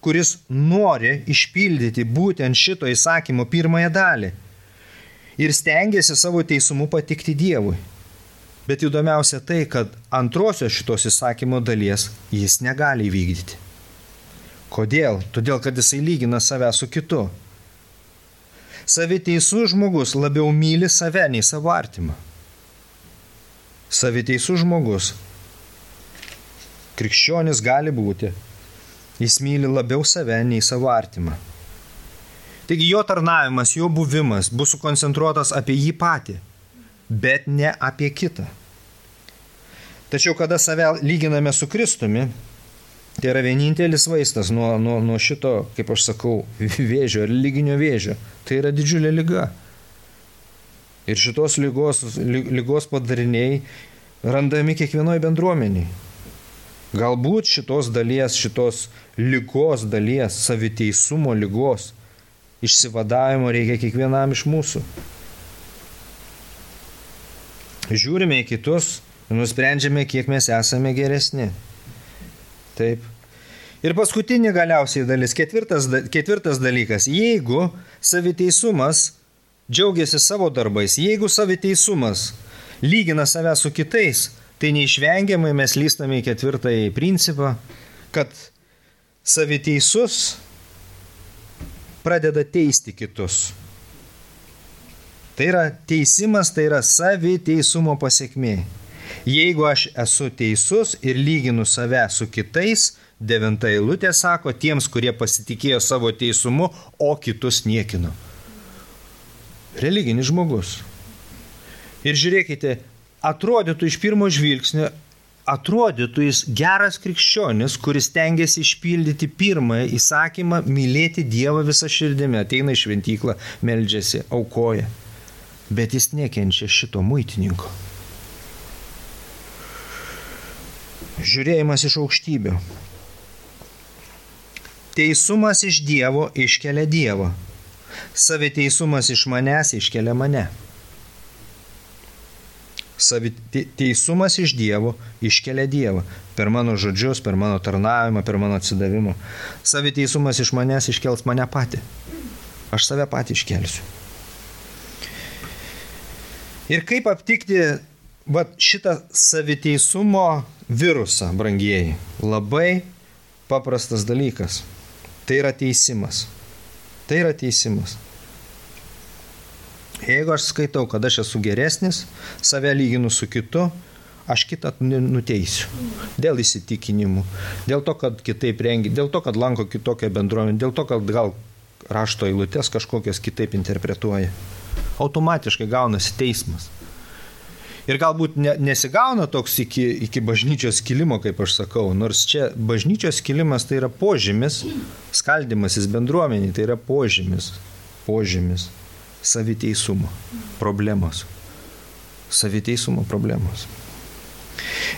kuris nori išpildyti būtent šito įsakymo pirmąją dalį. Ir stengiasi savo teisumu patikti Dievui. Bet įdomiausia tai, kad antrosios šitos įsakymo dalies jis negali įvykdyti. Kodėl? Todėl, kad jisai lygina save su kitu. Saviteisus žmogus labiau myli save nei savo artimą. Saviteisus žmogus. Krikščionis gali būti. Jis myli labiau save nei savo artimą. Taigi jo tarnavimas, jo buvimas bus sukoncentruotas apie jį patį, bet ne apie kitą. Tačiau kada save lyginame su Kristumi, tai yra vienintelis vaistas nuo šito, kaip aš sakau, vėžio, religinio vėžio. Tai yra didžiulė liga. Ir šitos lygos padariniai randami kiekvienoje bendruomeniai. Galbūt šitos lygos dalies, saviteisumo lygos, išsivadavimo reikia kiekvienam iš mūsų. Žiūrime į kitus ir nusprendžiame, kiek mes esame geresni. Taip. Ir paskutinė galiausiai dalis, ketvirtas dalykas. Jeigu saviteisumas džiaugiasi savo darbais, jeigu saviteisumas lygina save su kitais, tai neišvengiamai mes lystame į ketvirtąjį principą, kad saviteisus pradeda teisti kitus. Tai yra teisimas, tai yra saviteisumo pasiekmė. Jeigu aš esu teisus ir lyginu save su kitais, 9 eilutė sako, tiems, kurie pasitikėjo savo teisumu, o kitus niekino. Religinis žmogus. Ir žiūrėkite, atrodytų iš pirmo žvilgsnio, atrodytų jis geras krikščionis, kuris tengiasi išpildyti pirmąją įsakymą mylėti Dievą visą širdimi, ateina į šventyklą, meldžiasi, aukoja. Bet jis nekenčia šito muitininko. Žiūrėjimas iš aukštybių. Teisumas iš Dievo iškelia Dievą. Saviteisumas iš manęs iškelia mane. Teisumas iš Dievo iškelia Dievą. Per mano žodžius, per mano tarnavimą, per mano atsidavimą. Saviteisumas iš manęs iškels mane patį. Aš save patį iškelsiu. Ir kaip aptikti šitą saviteisumo virusą, brangieji? Labai paprastas dalykas. Tai yra teisimas. Tai yra teisimas. Jeigu aš skaitau, kad aš esu geresnis, save lyginu su kitu, aš kitą nuteisiu. Dėl įsitikinimų, dėl to, kad kitaip rengia, dėl to, kad lanko kitokią bendruomenę, dėl to, kad gal rašto eilutes kažkokias kitaip interpretuoja. Automatiškai gaunasi teismas. Ir galbūt nesigauna toks iki bažnyčios skilimo, kaip aš sakau, nors čia bažnyčios skilimas tai yra požymis, skaldymasis bendruomeniai, tai yra požymis saviteisumo problemos. Saviteisumo problemos.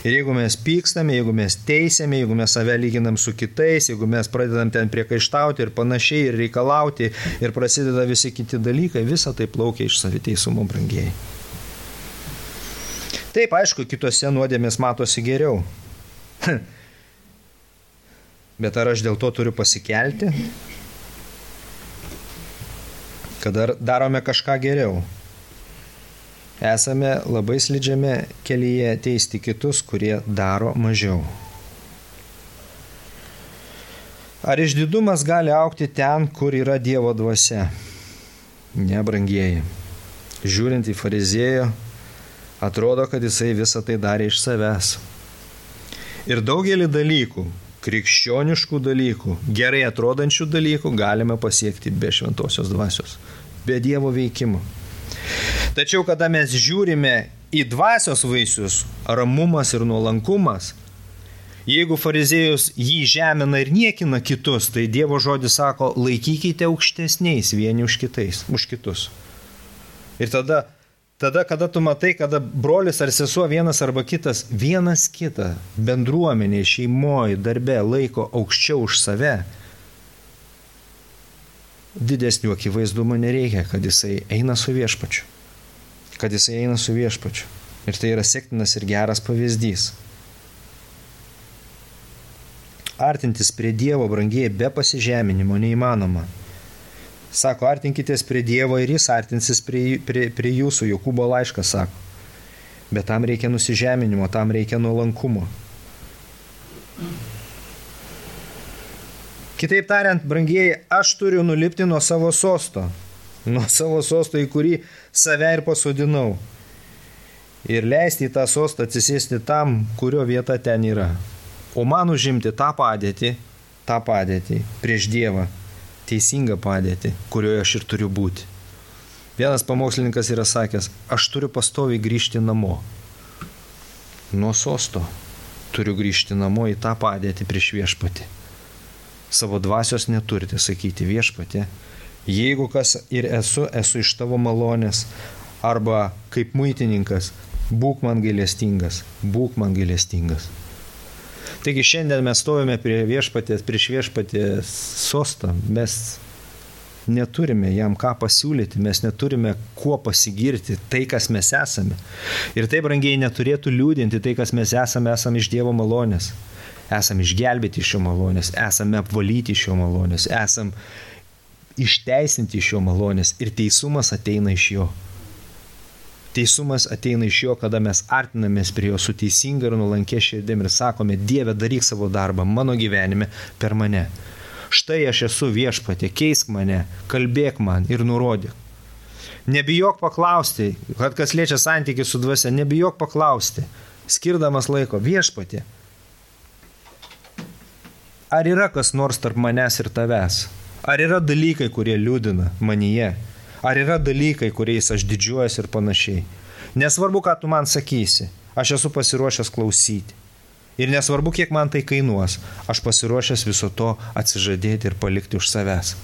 Ir jeigu mes pykstame, jeigu mes teisėme, jeigu mes save lyginam su kitais, jeigu mes pradedam ten priekaištauti ir panašiai, ir reikalauti, ir prasideda visi kiti dalykai, visa tai plaukia iš saviteisumo, brangieji. Taip, aišku, kitose nuodėmės matosi geriau. Bet ar aš dėl to turiu pasikelti? Kad darome kažką geriau. Esame labai slidžiame kelyje teisti kitus, kurie daro mažiau. Ar išdidumas gali augti ten, kur yra Dievo dvasia? Ne, brangieji. Žiūrint į fariziejų, atrodo, kad jisai visą tai darė iš savęs. Ir daugelį dalykų, krikščioniškų dalykų, gerai atrodančių dalykų galime pasiekti be šventosios dvasios, be Dievo veikimo. Tačiau, kada mes žiūrime į dvasios vaisius, ramumas ir nuolankumas, jeigu fariziejus jį žemina ir niekina kitus, tai Dievo žodis sako, laikykite aukštesniais vieni už kitus. Ir tada, kada tu matai, kada brolis ar sesuo vienas arba kitas, vienas kitą bendruomenė, šeimoje, darbe laiko aukščiau už save, didesnių akivaizdumo nereikia, kad jisai eina su viešpačiu. Ir tai yra sektinas ir geras pavyzdys. Artintis prie Dievo, brangieji, be pasižeminimo neįmanoma. Sako, artinkitės prie Dievo ir jis artinsis prie jūsų, Jokūbo laiškas sako. Bet tam reikia nusižeminimo, tam reikia nuolankumo. Kitaip tariant, brangieji, aš turiu nulipti nuo savo sosto, į kurį save ir pasodinau. Ir leisti į tą sostą atsisėsti tam, kurio vieta ten yra. O man užimti tą padėtį prieš Dievą, teisingą padėtį, kurioje aš ir turiu būti. Vienas pamokslininkas yra sakęs, aš turiu pastoviai grįžti namo. Nuo sosto turiu grįžti namo į tą padėtį prieš viešpatį. Savo dvasios neturite sakyti viešpatį, jeigu kas ir esu iš tavo malonės, arba kaip muitininkas, būk man gailestingas. Taigi šiandien mes stovime prieš viešpatės sostą, mes neturime jam ką pasiūlyti, mes neturime kuo pasigirti tai, kas mes esame. Ir tai, brangiai, neturėtų liūdinti tai, kas mes esame iš Dievo malonės. Esame išgelbėti iš jo malonės, esame apvalyti iš jo malonės, esame išteisinti iš jo malonės ir teisumas ateina iš jo. Teisumas ateina iš jo, kada mes artinamės prie jo su teisinga ir nuolankia širdim ir sakome, Dieve, daryk savo darbą mano gyvenime per mane. Štai aš esu viešpatie, keisk mane, kalbėk man ir nurodyk. Nebijok paklausti, kad kas liečia santykį su dvasia, nebijok paklausti, skirdamas laiko, viešpatie, ar yra kas nors tarp manęs ir tavęs? Ar yra dalykai, kurie liūdina manyje? Ar yra dalykai, kuriais aš didžiuojuosi ir panašiai? Nesvarbu, ką tu man sakysi, aš esu pasiruošęs klausyti. Ir nesvarbu, kiek man tai kainuos, aš pasiruošęs viso to atsižadėti ir palikti už savęs.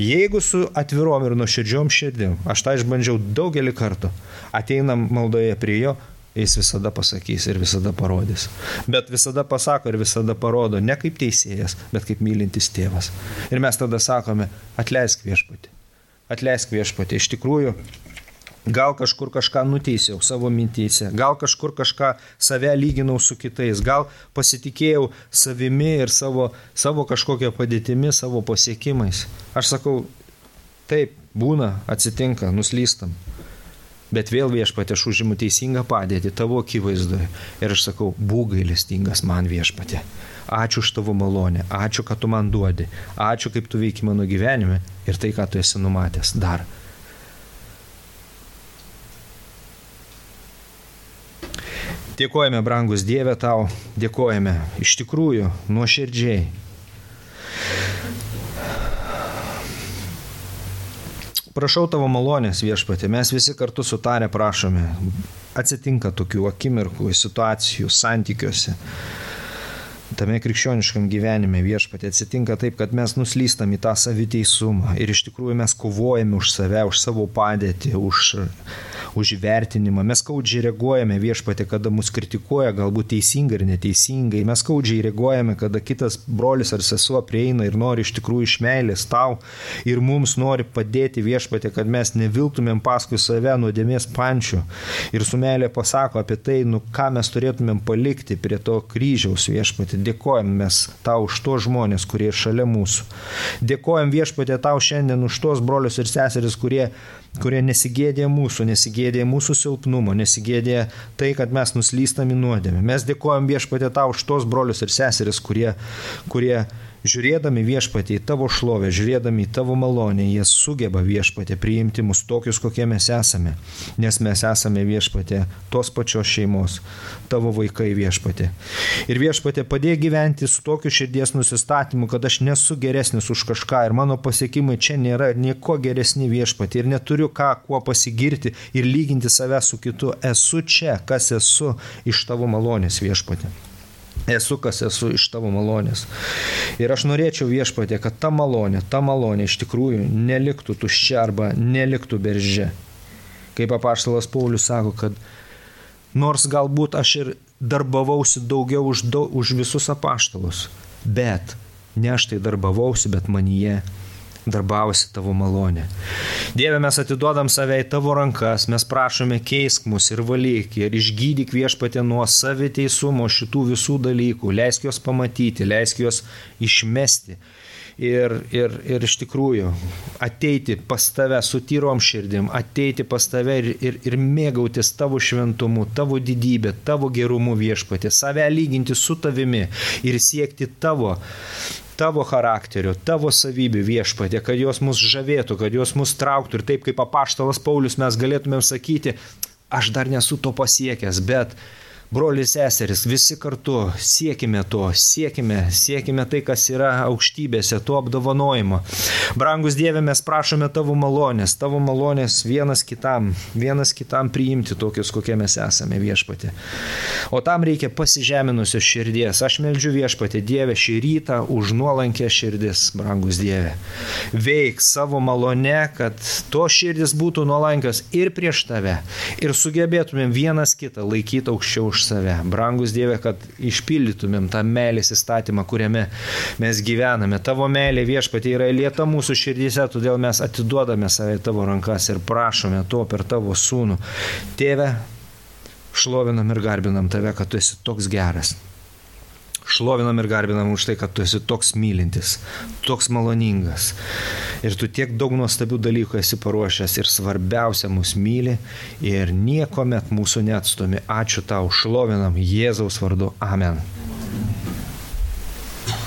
Jeigu su atvirom ir nuoširdžiom širdim, aš tą išbandžiau daugelį kartų, ateinam maldoje prie jo, jis visada pasakys ir visada parodys. Bet visada pasako ir visada parodo, ne kaip teisėjas, bet kaip mylintis tėvas. Ir mes tada sakome, atleisk viešpatį. Atleisk viešpatį. Iš tikrųjų, gal kažkur kažką nuteisiau savo mintyse, gal kažkur kažką save lyginau su kitais, gal pasitikėjau savimi ir savo kažkokią padėtimi, savo pasiekimais. Aš sakau, taip, būna, atsitinka, nuslystam. Bet vėl viešpatė, aš užimu teisingą padėtį tavo akivaizdoje. Ir aš sakau, būk gailestingas man viešpatė. Ačiū už tavo malonę, ačiū, kad tu man duodi, ačiū, kaip tu veiki mano gyvenime ir tai, ką tu esi numatęs dar. Dėkojame, brangus Dieve, tau, dėkojame iš tikrųjų nuoširdžiai. Prašau tavo malonės, viešpatė, mes visi kartu sutarę prašome. Atsitinka tokių akimirkų, situacijų, santykiuose. Tame krikščioniškam gyvenime, viešpatė, atsitinka taip, kad mes nuslystam į tą saviteisumą ir iš tikrųjų mes kovojame už save, už savo padėtį, už įvertinimą. Mes skaudžiai reaguojame, viešpatė, kada mus kritikuoja, galbūt teisingai ir neteisingai. Mes skaudžiai reaguojame, kada kitas brolis ar sesuo prieina ir nori iš tikrųjų iš meilės tau ir mums nori padėti, viešpatė, kad mes neviltumėm paskui save nuodėmės pančių ir su meilė pasako apie tai, ką mes turėtumėm palikti prie to kryžiaus, viešpatė. Dėkojam mes tau už tos žmonės, kurie šalia mūsų. Dėkojam, viešpatė, tau šiandien už tos brolius ir seseris, kurie nesigėdė mūsų silpnumo, nesigėdė tai, kad mes nuslystam į nuodėmę. Mes dėkojam, viešpatė, tau už tos brolius ir seseris, kurie žiūrėdami, viešpatė, į tavo šlovę, žiūrėdami į tavo malonę, jie sugeba, viešpatė, priimti mus tokius, kokie mes esame. Nes mes esame, viešpatė, tos pačios šeimos, tavo vaikai, viešpatė. Ir viešpatė, padėk gyventi su tokiu širdies nusistatymu, kad aš nesu geresnis už kažką ir mano pasiekimai čia nėra nieko geresni, viešpatė. Ir neturiu kuo pasigirti ir lyginti save su kitu. Esu čia, kas esu iš tavo malonės, viešpatė. Esu, kas esu iš tavo malonės. Ir aš norėčiau, viešpatė, kad ta malonė iš tikrųjų neliktų tuščia arba neliktų berže. Kaip apaštalas Paulius sako, kad nors galbūt aš ir darbavausi daugiau už visus apaštalus, bet ne aš tai darbavausi, bet manyje darbavosi tavo malonė. Dieve, mes atiduodam save į tavo rankas, mes prašome keisk mus ir valyk ir išgydyk, viešpatė, nuo saviteisumo šitų visų dalykų, leisk juos pamatyti, leisk juos išmesti ir iš tikrųjų ateiti pas tave su tyrom širdim, ateiti pas tave ir mėgautis tavo šventumu, tavo didybė, tavo gerumu, viešpatė, save lyginti su tavimi ir siekti tavo tavo charakterio, tavo savybių Viešpatie, kad jos mus žavėtų, kad jos mus trauktų ir taip kaip apaštalas Paulius mes galėtumėm sakyti, aš dar nesu to pasiekęs, bet broliai seserys, visi kartu siekime to, siekime tai, kas yra aukštybėse, to apdovanojimo. Brangus Dieve, mes prašome tavo malonės vienas kitam priimti tokius, kokie mes esame Viešpatie. O tam reikia pasižeminusios širdies. Aš meldžiu Viešpatie, Dieve, šį rytą už nuolankę širdis, brangus Dieve. Veik savo malone, kad to širdis būtų nuolankios ir prieš tave, ir sugebėtumėm vienas kitą laikyti aukščiau už save. Brangus Dieve, kad išpildytumėm tą meilės įstatymą, kuriame mes gyvename. Tavo meilė Viešpatie yra lieta mūsų širdyse, todėl mes atiduodame save į tavo rankas ir prašome to per tavo sūnų. Tėve, šlovinam ir garbinam tave, kad tu esi toks geras. Šlovinam ir garbinam už tai, kad tu esi toks mylintis, toks maloningas. Ir tu tiek daug nuostabių dalykų esi paruošęs ir svarbiausia mus myli ir niekuomet mūsų neatstumi. Ačiū tau, šlovinam Jėzaus vardu. Amen.